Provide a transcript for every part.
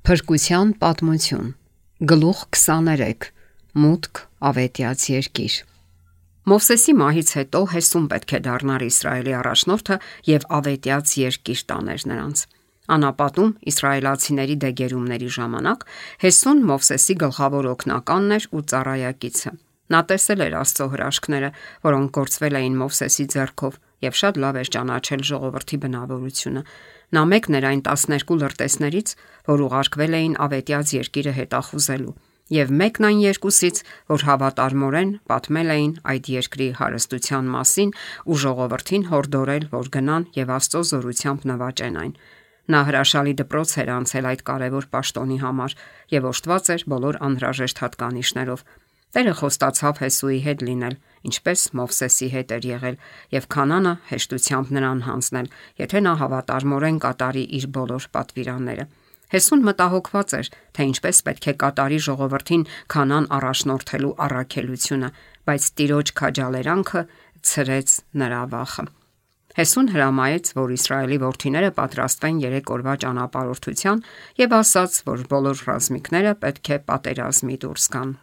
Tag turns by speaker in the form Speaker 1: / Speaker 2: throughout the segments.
Speaker 1: Փրկության պատմություն, գլուխ 23, մուտք ավետյաց երկիր։ Մովսեսի մահից հետո Հեսուն պետք է դառնար Իսրայելի առաջնորդը եւ ավետյաց երկիր տաներ նրանց։ Անապատում իսրայելացիների դեգերումների ժամանակ Հեսուն Մովսեսի գլխավոր օգնականն էր ու ծառայակիցը։ Նա տեսել էր Աստծո հրաշքները, որոնք գործվել էին Մովսեսի ձեռքով, եւ շատ լավ էր ճանաչել ժողովրդի բնավորությունը։ Նա մեկն էր այն 12 լրտեսներից, որ ուղարկվել էին ավետյաց երկիրը հետախուզելու, եւ մեկն այն երկուսից, որ հավատարմորեն պատմել էին այդ երկրի հարստության մասին ու ժողովրդին հորդորել, որ գնան եւ Աստծո զորությամբ նվաճեն այն։ Նա հրաշալի դպրոց էր անցել այդ կարևոր պաշտոնի համար եւ օժտված էր բոլոր անհրաժեշտ հատկանիշներով։ Տերը խոստացավ Հեսուի հետ լինել, ինչպես Մովսեսի հետ էր եղել, եւ Քանանը հեշտությամբ նրան հանձնել, եթե նա հավատարմորեն կատարի իր բոլոր պատվիրանները։ Հեսուն մտահոգված էր, թե ինչպես պետք է կատարի ժողովրդին Քանան առաջնորդելու առաքելությունը, բայց Տիրոջ քաջալերանքը ցրեց նրա վախը։ Հեսուն հրամայեց, որ Իսրայելի որդիները պատրաստվեն 3 օրվա ճանապարհորդության եւ ասաց, որ բոլոր ռազմիկները պետք է պատերազմի դուրս գան։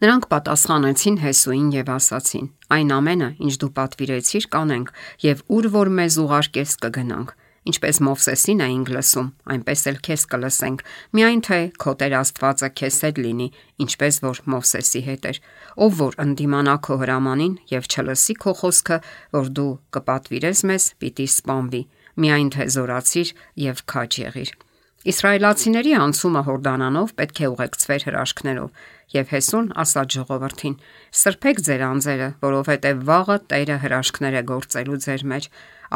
Speaker 1: Նրանք պատասխանեցին Հեսուին եւ ասացին. «Այն ամենը, ինչ դու պատվիրեցիր, կանենք եւ ուր որ մեզ ուղարկես կգնանք։ Ինչպես Մովսեսին էինք լսում, այնպես էլ քեզ կլսենք, միայն թե քո Տեր Աստվածը քեզ հետ լինի, ինչպես որ Մովսեսի հետ էր, ով որ ընդդիմանա քո հրամանին եւ չլսի քո խոսքը, որ դու կպատվիրես մեզ, պիտի սպանվի, միայն թե զորացիր եւ քաջ եղիր»։ Իսրայելացիների անցումը Հորդանանով պետք է ուղեկցվեր հրաշքներով, եւ Հեսուն ասաց ժողովրդին. «Սրբեք ձեր անձերը, որովհետեւ վաղը Տերը հրաշքներ է գործելու ձեր մեջ»։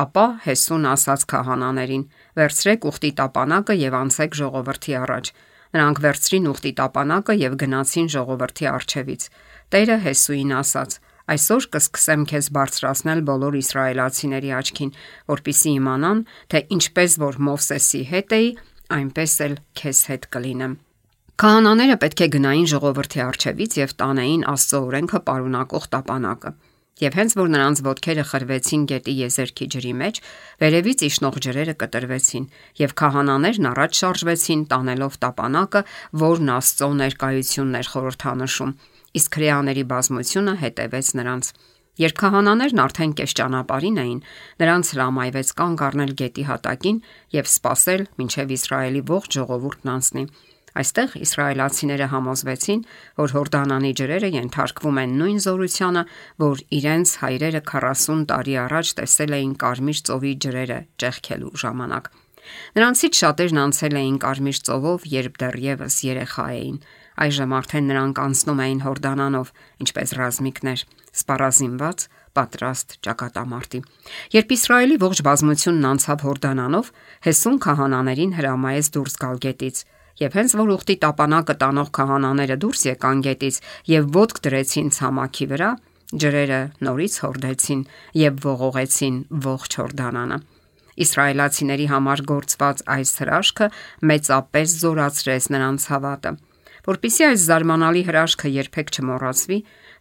Speaker 1: Ապա Հեսուն ասաց քահանաներին. «Վերցրեք ուխտի տապանակը եւ անցեք ժողովրդի առաջ»։ Նրանք վերցրին ուխտի տապանակը եւ գնացին ժողովրդի առջևից։ Տերը Հեսուին ասաց. «Այսօր կսկսեմ քեզ բարձրացնել բոլոր իսրայելացիների աչքին, որպեսզի իմանան, թե ինչպես որ Մովսեսի հետ էի, այնպես էլ քեզ հետ կլինեմ»։ Քահանաները պետք է գնային ժողովրդի առջևից եւ տանեին Աստծո օրենքը պարունակող տապանակը։ Եվ հենց որ նրանց ոտքերը խրվեցին գետի եզերքի ջրի մեջ, վերևից իջնող ջրերը կտրվեցին, եւ քահանաներն առաջ շարժվեցին տանելով տապանակը, որն Աստծո ներկայությունն էր խորհրդանշում, իսկ հրեաների բազմությունը հետևեց նրանց։ Երբ քահանաներն արդեն կես ճանապարհին էին, նրանց հրամայվեց կանգ առնել գետի հատակին եւ սպասել, մինչեւ Իսրայելի ողջ ժողովուրդն անցնի։ Այստեղ իսրայելացիները համոզվեցին, որ Հորդանանի ջրերը ենթարկվում են նույն զորությանը, որ իրենց հայրերը 40 տարի առաջ տեսել էին Կարմիր ծովի ջրերը ճեղքելու ժամանակ։ Նրանցից շատերն անցել էին Կարմիր ծովով, երբ դեռևս երեխա էին։ Այժմ արդեն նրանք անցնում էին Հորդանանով, ինչպես ռազմիկներ, սպառազինված, պատրաստ ճակատամարտի։ Երբ Իսրայելի ողջ բազմությունն անցավ Հորդանանով, Հեսուն քահանաներին հրամայեց դուրս գալ գետից, եւ հենց որ ուխտի տապանակը տանող քահանաները դուրս եկան գետից եւ ոտք դրեցին ցամաքի վրա, ջրերը նորից հորդեցին եւ ողողեցին ողջ Հորդանանը։ Իսրայելացիների համար գործված այս հրաշքը մեծապես զորացրեց նրանց հավատը։ Որպեսզի այս զարմանալի հրաշքը երբեք չմոռացվի,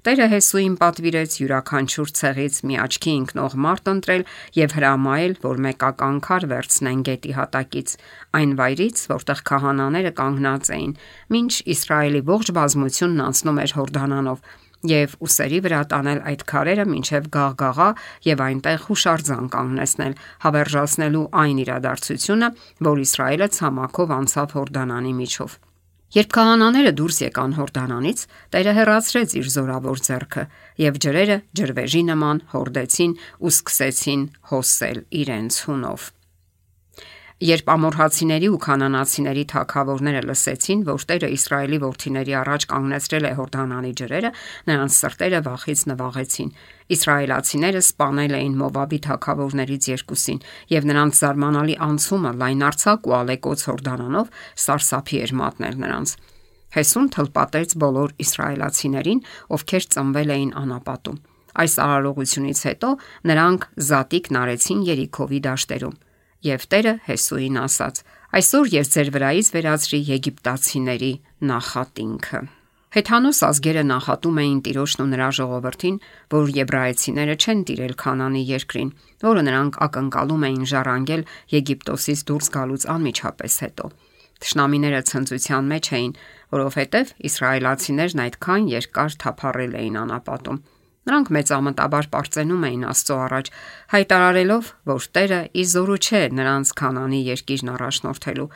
Speaker 1: Տերը Հեսուին պատվիրեց յուրաքանչյուր ցեղից մի աչքի ընկնող մարդ ընտրել եւ հրամայել, որ մեկական քար վերցնեն գետի հատակից, այն վայրից, որտեղ քահանաները կանգնած էին, մինչ Իսրայելի ողջ բազմությունն անցնում էր Հորդանանով, եւ ուսերի վրա տանել այդ քարերը մինչեւ Գաղգաղա եւ այնտեղ հուշարձան կանգնեցնել, հավերժացնելու այն իրադարձությունը, որ Իսրայելը ցամաքով անցավ Հորդանանի միջով։ Երբ քահանաները դուրս եկան Հորդանանից, Տերը հեռացրեց իր զորավոր ձեռքը, եւ ջրերը ջրվեժի նման հորդեցին ու սկսեցին հոսել իրենց հունով։ Երբ ամորհացիների ու քանանացիների թագավորները լսեցին, որ Տերը Իսրայելի որդիների առաջ կանգնեցրել է Հորդանանի ջրերը, նրանց սրտերը վախից նվաղեցին։ Իսրայելացիները սպանել էին Մովաբի թագավորներից երկուսին, եւ նրանց զարմանալի անցումը լայնարձակ ու ալեկոծ Հորդանանով սարսափի էր մատնել նրանց։ Հեսուն թլպատեց բոլոր իսրայելացիներին, ովքեր ծնվել էին անապատում։ Այս արարողությունից հետո նրանք զատիկն արեցին Երիքովի դաշտերում։ Եվ Տերը Հեսուին ասաց. «Այսօր ես ձեր վրայից վերացրի եգիպտացիների նախատինքը»։ Հեթանոս ազգերը նախատում էին Տիրոջն ու նրա ժողովրդին, որ եբրայեցիները չեն տիրել Քանանի երկրին, որը նրանք ակնկալում էին ժառանգել Եգիպտոսից դուրս գալուց անմիջապես հետո։ Թշնամիները ցնծության մեջ էին, որովհետև իսրայելացիներն այդքան երկար թափառել էին անապատում։ Նրանք մեծամտաբար պարծենում էին Աստծո առաջ, հայտարարելով, որ Տերը ի զորու չէ նրանց Քանանի երկիրն առաջնորդելու,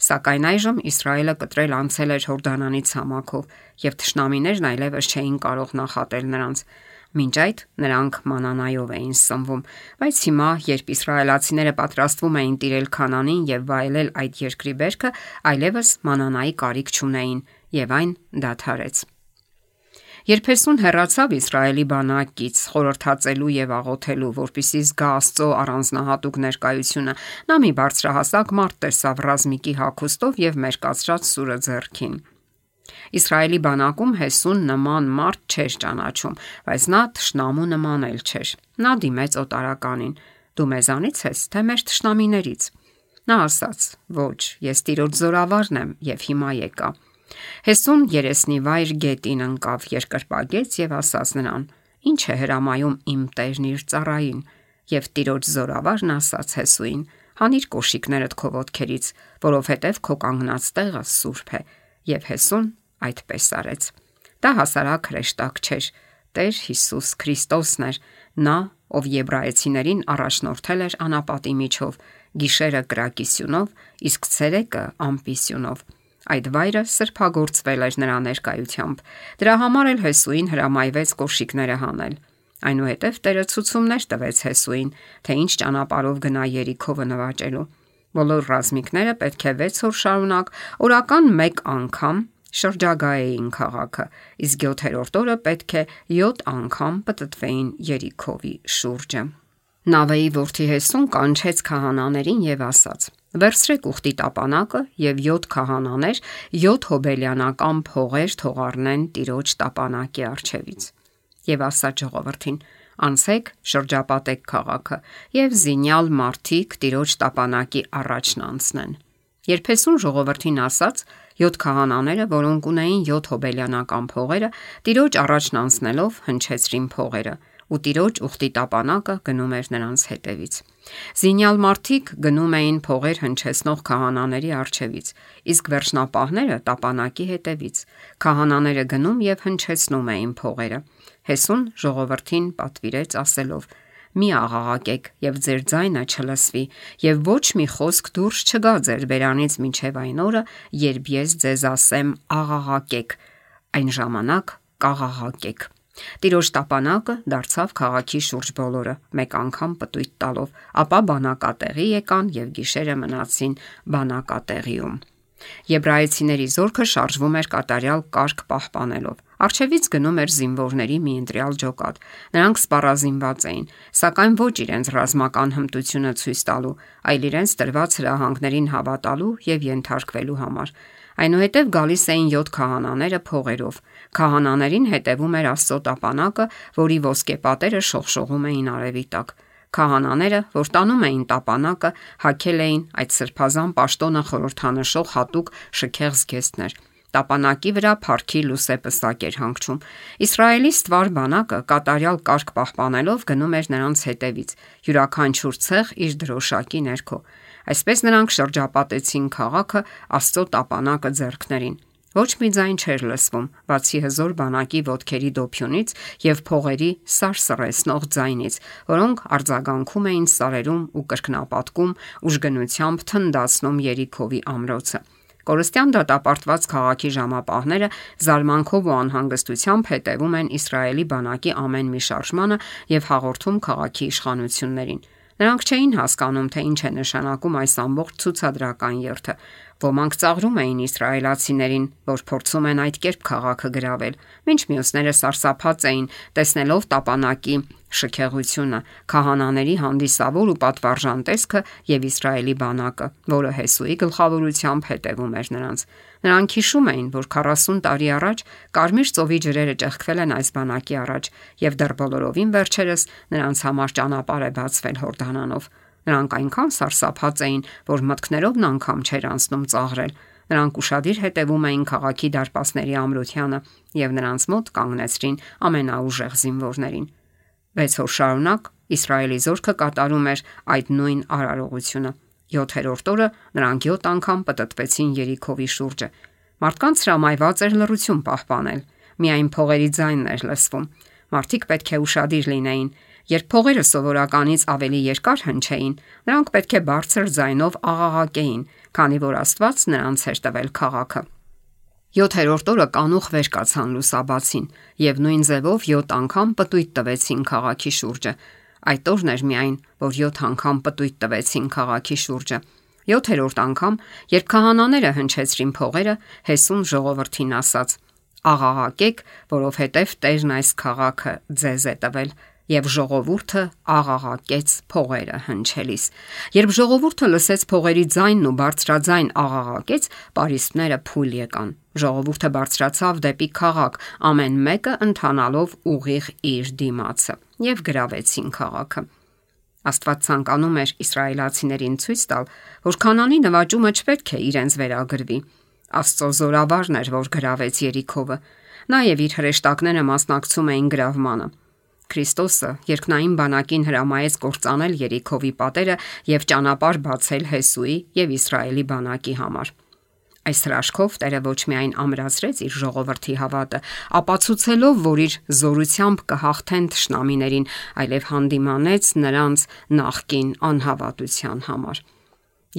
Speaker 1: սակայն այժմ Իսրայելը կտրել անցել էր Հորդանանի ցամաքով, եւ թշնամիներն այլևս չէին կարող նախատել նրանց։ Մինչ այդ նրանք մանանայով էին սնվում, բայց հիմա, երբ իսրայելացիները պատրաստվում էին տիրել Քանանին եւ վայելել այդ երկրի բերքը, այլևս մանանայի կարիք չունեին, եւ այն դադարեց։ Երբ Հեսուն հեռացավ Իսրայելի բանակից խորհրդածելու եւ աղոթելու, որպեսզի զգա Աստծո առանձնահատուկ ներկայությունը, նա մի բարձրահասակ մարդ տեսավ ռազմիկի հագուստով եւ մերկացրած սուրը ձեռքին։ Իսրայելի բանակում Հեսուն նման մարդ չէր ճանաչում, բայց նա թշնամու նման էլ չէր։ Նա դիմեց օտարականին. «Դու մեզանից ես, թե մեր թշնամիներից»։ Նա ասաց. «Ոչ, ես Տիրոջ զորավարն եմ եւ հիմա եկա»։ Հեսուն երեսնիվայր գետին ընկավ, երկրպագեց եւ ասաց նրան. «Ինչ է հրամայում իմ տերն իր ծառային»։ Եվ Տիրոջ զորավարն ասաց Հեսուին. «Հանիր կոշիկներդ քո ոտքերից, որովհետեւ քո կանգնած տեղը սուրբ է»։ Եվ Հեսուն այդպես արեց։ Դա հասարակ հրեշտակ չէր։ Տեր Հիսուս Քրիստոսն էր, նա, ով եբրայեցիներին առաջնորդել էր անապատի միջով, գիշերը կրակի սյունով, իսկ ցերեկը ամպի սյունով։ Այդ վայրը սրբագործվել էր նրա ներկայությամբ։ Դրա համար էլ Հեսուին հրամայվեց կոշիկները հանել։ Այնուհետև Տերը ցուցումներ տվեց Հեսուին, թե ինչ ճանապարհով գնա Երիքովը նվաճելու։ Բոլոր ռազմիկները պետք է 6 օր շարունակ օրական 1 անգամ շրջագայեին քաղաքը, իսկ 7-րդ օրը պետք է 7 անգամ պտտվեին Երիքովի շուրջը։ Նավեի որդի Հեսուն կանչեց քահանաներին եւ ասաց. «Վերցրեք ուխտի տապանակը եւ 7 քահանաներ 7 հոբելյանական փողեր թող առնեն Տիրոջ տապանակի առջևից»։ Եվ ասաց ժողովրդին. «Անցեք, շրջապատեք քաղաքը եւ զինյալ մարդիկ Տիրոջ տապանակի առաջն անցնեն»։ Երբ Հեսուն ժողովրդին ասաց, 7 քահանաները, որոնք ունեին 7 հոբելյանական փողերը, Տիրոջ առաջն անցնելով հնչեցրին փողերը, ու Տիրոջ ուխտի տապանակը գնում էր նրանց հետևից։ Զինյալ մարդիկ գնում էին փողեր հնչեցնող քահանաների առջևից, իսկ վերջնապահները տապանակի հետևից։ Քահանաները գնում եւ հնչեցնում էին փողերը։ Հեսուն ժողովրդին պատվիրեց ասելով. «Մի աղաղակեք եւ ձեր ձայնը չլսվի, եւ ոչ մի խոսք դուրս չգա ձեր բերանից մինչեւ այն օրը, երբ ես ձեզ ասեմ աղաղակեք, այն ժամանակ կաղաղակեք»։ Տիրոջ տապանակը դարձավ քաղաքի շուրջ բոլորը, մեկ անգամ պտույտ տալով, ապա բանակատեղի եկան եւ գիշերը մնացին բանակատեղիում։ Եբրայեցիների զորքը շարժվում էր կատարյալ կարգ պահպանելով։ Առջևից գնում էր զինվորների մի ընտրյալ ջոկատ։ Նրանք սպառազինված էին, սակայն ոչ իրենց ռազմական հմտությունը ցույց տալու, այլ իրենց տրված հրահանգներին հավատալու եւ ենթարկվելու համար։ Այնուհետև գալիս էին 7 քահանաները փողերով։ Քահանաներին հետևում էր Աստծո տապանակը, որի ոսկե պատերը շողշողում էին արևի տակ։ Քահանաները, որ տանում էին տապանակը, հագել էին այդ սրբազան պաշտոնը խորհրդանշող հատուկ շքեղ զգեստներ։ Տապանակի վրա փառքի լուսեպսակ էր հանգչում։ Իսրայելի ստվար բանակը կատարյալ կարգ պահպանելով գնում էր նրանց հետևից, յուրաքանչյուր ցեղ իր դրոշակի ներքո։ Այսպես նրանք շրջապատեցին քաղաքը Աստծո տապանակը ձեռքներին։ Ոչ մի ձայն չէր լսվում, բացի հզոր բանակի ոտքերի դոփյունից եւ փողերի սարսռեցնող ձայնից, որոնք արձագանքում էին սարերում ու կրկնապատկում, ուժգնությամբ թնդացնում Երիքովի ամրոցը։ Կորստյան դատապարտված քաղաքի ժամապահները զարմանքով ու անհանգստությամբ հետևում են Իսրայելի բանակի ամեն մի շարժմանը եւ հաղորդում քաղաքի իշխանություններին։ Նրանք չէին հասկանում, թե ինչ է նշանակում այս ամբողջ ցուցադրական երթը։ Ոմանք ծաղրում էին իսրայելացիներին, որ փորձում են այդ կերպ քաղաքը գրավել, մինչ մյուսները սարսափած էին, տեսնելով տապանակի շքեղությունը, քահանաների հանդիսավոր ու պատվարժան տեսքը եւ Իսրայելի բանակը, որը Հեսուի գլխավորությամբ հետևում էր նրանց։ Նրանք հիշում էին, որ 40 տարի առաջ Կարմիր ծովի ջրերը ճեղքվել են այս բանակի առաջ եւ դեռ բոլորովին վերջերս նրանց համար ճանապարհ է բացվել Հորդանանով։ Նրանք այնքան սարսափած էին, որ մտքներովն անգամ չէր անցնում ծաղրել։ Նրանք ուշադիր հետևում էին քաղաքի դարպասների ամրությանը եւ նրանց մոտ կանգնեցրին ամենաուժեղ զինվորներին։ 6 օր շարունակ Իսրայելի զորքը կատարում էր այդ նույն արարողությունը։ 7-րդ օրը նրանք 7 անգամ պտտվեցին Երիքովի շուրջը։ Մարդկանց հրամայված էր լռություն պահպանել, միայն փողերի ձայնն էր լսվում։ Մարդիկ պետք է ուշադիր լինեին։ Երբ փողերը սովորականից ավելի երկար հնչեին, նրանք պետք է բարձր ձայնով աղաղակեին, քանի որ Աստված նրանց էր տվել քաղաքը։ 7-րդ օրը կանուխ վեր կացան լուսաբացին եւ նույն ձևով 7 անգամ պտույտ տվեցին քաղաքի շուրջը։ Այդ օրն էր միայն, որ 7 անգամ պտույտ տվեցին քաղաքի շուրջը։ 7-րդ անգամ, երբ քահանաները հնչեցրին փողերը, Հեսուն ժողովրդին ասաց. «Աղաղակեք, որովհետև Տերն այս քաղաքը ձեզ է տվել»։ Եվ ժողովուրդը աղաղակեց փողերը հնչելիս։ Երբ ժողովուրդը լսեց փողերի ձայնն ու բարձրաձայն աղաղակեց, պարիսպները փուլ եկան։ Ժողովուրդը բարձրացավ դեպի քաղաք, ամեն մեկը ընթանալով ուղիղ իր դիմացը, եւ գրավեցին քաղաքը։ Աստված ցանկանում էր իսրայելացիներին ցույց տալ, որ Քանանի նվաճումը չպետք է իրենց վերագրվի։ Աստծո զորավարն էր, որ գրավեց Երիքովը։ Նա եւ իր հրեշտակները մասնակցում էին գրավմանը։ Քրիստոսը երկնային բանակին հրամայեց կործանել Երիքովի պատերը եւ ճանապարհ բացել Հեսուի եւ Իսրայելի բանակի համար։ Այս հրաշքով Տերը ոչ միայն ամրացրեց իր ժողովրդի հավատը, ապացուցելով, որ իր զորությամբ կհաղթեն թշնամիներին, այլև հանդիմանեց նրանց նախկին անհավատության համար։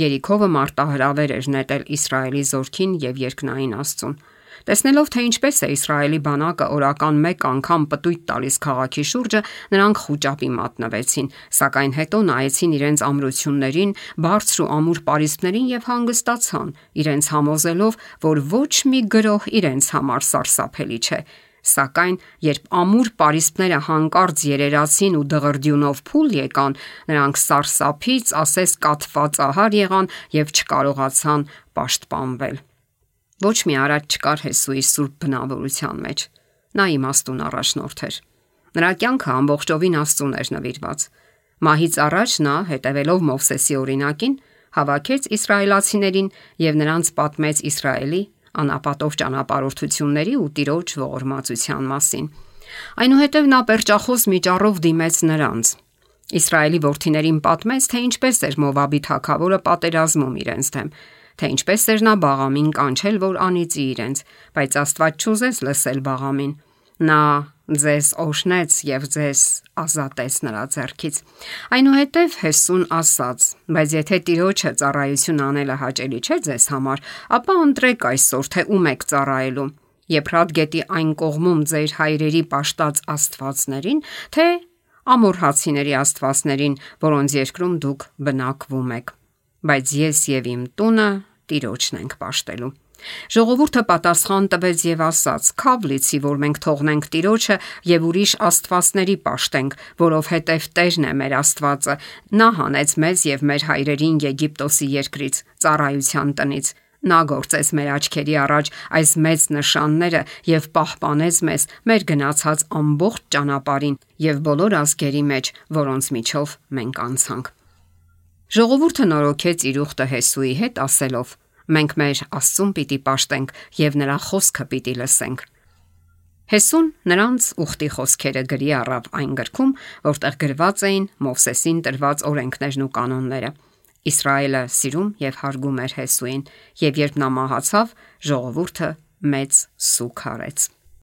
Speaker 1: Երիքովը մարտահրավեր էր նետել Իսրայելի զորքին եւ երկնային Աստծուն։ Տեսնելով, թե ինչպես է Իսրայելի բանակը օրական 1 անգամ պտույտ տալիս քաղաքի շուրջը, նրանք խուճապի մատնվեցին, սակայն հետո նայեցին իրենց ամրություններին, բարձր ու ամուր պարիսպներին եւ հանգստացան, իրենց համոզելով, որ ոչ մի գրոհ իրենց համար սարսափելի չէ։ Սակայն երբ ամուր պարիսպները հանկարծ երերացին ու դղրդյունով փուլ եկան, նրանք սարսափից ասես կաթվածահար եղան եւ չկարողացան պաշտպանվել։ Ոչ մի արած չկար Հեսուի սուրբ բնավորության մեջ։ Նա իմաստուն առաջնորդ էր։ Նրա կյանքը ամբողջովին Աստծուն էր նվիրված։ Մահից առաջ նա, հետևելով Մովսեսի օրինակին, հավաքեց իսրայելացիներին եւ նրանց պատմեց Իսրայելի անապատով ճանապարհորդությունների ու Տիրոջ ողորմածության մասին։ Այնուհետև նա պերճախոս միջառով դիմեց նրանց։ Իսրայելի որդիներին պատմեց, թե ինչպես էր Մովաբի թագավորը պատերազմում իրենց դեմ, թե ինչպես էր նա Բաղամին կանչել, որ անիծի իրենց, բայց Աստված չուզեց լսել Բաղամին։ Նա ձեզ օժնեց եւ ձեզ ազատեց նրա ձեռքից։ Այնուհետև Հեսուն ասաց. բայց եթե Տիրոջը ծառայություն անելը հաճելի չէ ձեզ համար, ապա ընտրեք այսօր, թե ում եք ծառայելու. Եփրատ գետի այն կողմում ձեր հայրերի պաշտած աստվածներին, թե ամորհացիների աստվածներին, որոնց երկրում դուք բնակվում եք։ Բայց ես եւ իմ տունը Տիրոջն ենք պաշտելու։ Ժողովուրդը պատասխան տվեց եւ ասաց. «Քավ լիցի, որ մենք թողնենք Տիրոջը եւ ուրիշ աստվածների պաշտենք, որովհետեւ Տերն է մեր Աստվածը։ Նա հանեց մեզ եւ մեր հայրերին Եգիպտոսի երկրից, ծառայության տնից։ Նա գործեց մեր աչքերի առաջ այս մեծ նշանները եւ պահպանեց մեզ մեր գնացած ամբողջ ճանապարհին եւ բոլոր ազգերի մեջ, որոնց միջով մենք անցանք»։ Ժողովուրդը նորոգեց իր ուխտը Հեսուի հետ, ասելով. «Մենք մեր Աստծուն պիտի պաշտենք եւ նրա խոսքը պիտի լսենք»։ Հեսուն նրանց ուխտի խոսքերը գրի առավ այն գրքում, որտեղ գրված էին Մովսեսին տրված օրենքներն ու կանոնները։ Իսրայելը սիրում եւ հարգում էր Հեսուին, եւ երբ նա մահացավ, ժողովուրդը մեծ սուգ արեց։